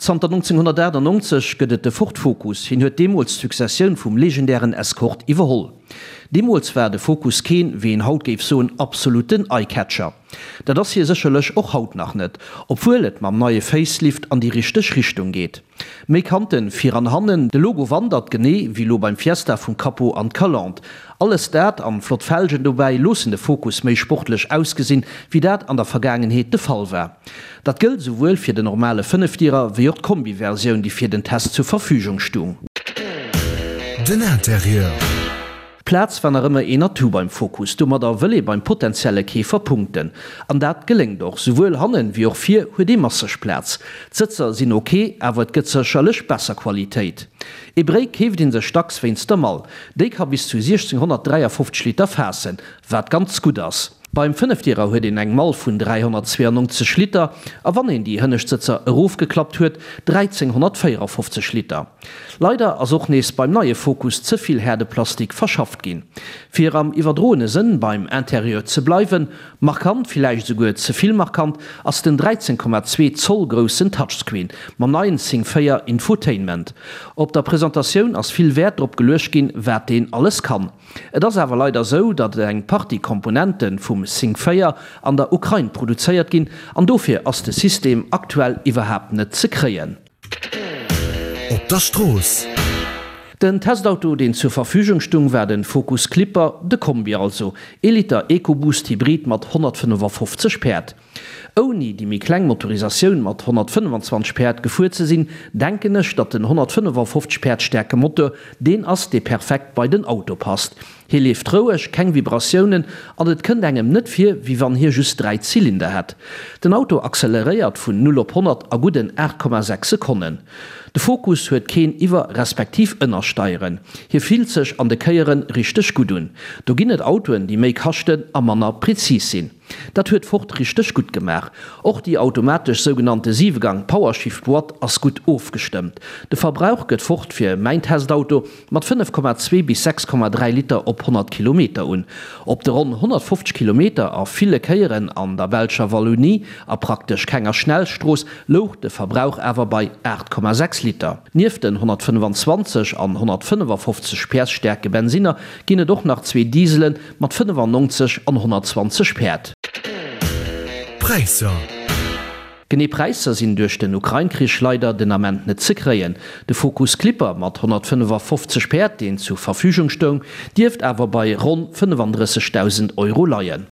Zanter 1998 gëtt et de Ford Focus. Hien huet deemools d'Successioun vum legendären Escort iwwerholl. Deemools war de Focus keen, wéi een haut géif soen, absoluten Eye-Catcher. Dat ass hie sécherlech och haut nach net, obwuel et mam neie Facelift an déi richteg Richtung geet. Méi Kanten vir an hannen, de Logo wandert, genee wéi lo beim Fiesta, vum Capot an d'Calandre. Alles dat an flott Felgen dobäi loossen de Focus méi sportlech ausgesinn, wéi dat an der Vergaangenheet de Fall war. Dat gëllt esouwuel fir den normale Fënnefdierer wéi och d'Kombi-Versioun, déi fir den Test zur Verfügung stung. Den Interieur. D'Plaz war nach ëmmer een Atout beim Focus. Domadder wëll ee beim potentielle Keefer punkten. An dat geléngt och. Souwuel hannen wéi och vir huet ee masseg Plaz. D'Sëtzer sinn ok, awer et gëtt sécherlech besser Qualitéit. Ee Bréi keeft ee sech dacks wéinst der Mall. Déi ka bis zu 1653 Liter faassen, wat ganz gutt ass. Beim Fënnefdierer huet een eng Mall vun 392 Liter a wann een déi hënnescht Sëtzer erofgeklappt huet, 1354 Liter. Leider ass och nees beim neie Focus ze vill Häerdeplastik verschafft ginn. Fir am iwwerdroene Sënn beim Interieur ze bleiwen, markant, villäicht esouguer ze vill markant, ass den 13,2 Zoll groussen Touchscreen mam neien Sync 4 Infotainment. Op der Presentatioun ass vill Wäert drop geluecht ginn, wat deen alles kann. Et ass awer leider sou, datt eng Partie Komponente vum Sync 4 an der Ukrain produzéiert ginn an dofir ass de System aktuell iwwerhaapt net ze kréien. Op der Strooss. Den Testauto deen zur Verfügung stung war den Focus Clipper, de Kombi also, ee Liter EcoBoost Hybrid mat 155 Päerd. Ouni déi méi kleng Motorisatioun mat 125 Päerd gefuer ze sinn, denken ech, datt den 155 Päerd staarke Motor deen ass, dee perfekt bei den Auto passt. Hie leeft roueg, keng Vibratiounen an et kënnt engem net vir, wéi wann hie just 3 Zylinder hätt. Den Auto acceleréiert vun 0 op 100 a gudden 8,6 Sekonnen. De Focus huet keen Iwwer respektiv Ënnersteieren. Hie fillt sech an de Kéiere richteg gutt un. Do ginn et Autoen, déi méi kaschten a manner prezis sinn. Dat huet Ford richteg gutt gemaach. Och déi automatesch sougenannte Siwegang Powershift Boîte ass gutt ofgestëmmt. De Verbrauch gëtt Ford fir mäin Testauto mat 5,2 bis 6,3 Liter op 100 Kilometer un. Op de ronn 150 Kilometer a ville Kéieren an der belscher Wallonie a praktesch kenger Schnellstrooss louch de Verbrauch awer bei 8,6 Liter. Nieft den 125 an 155 PS staarke Bensinner ginn et och nach zwee Dieselen Mat 95 an 120 Päerd. Präisser. Genee Präisser sinn duerch den Ukrain-Krich leider den Ament net ze kréien. De Focus Clipper mat 155 Päerd, deen zu Verfügung stoung, dierft awer bei ronn 35.000 Euro leien.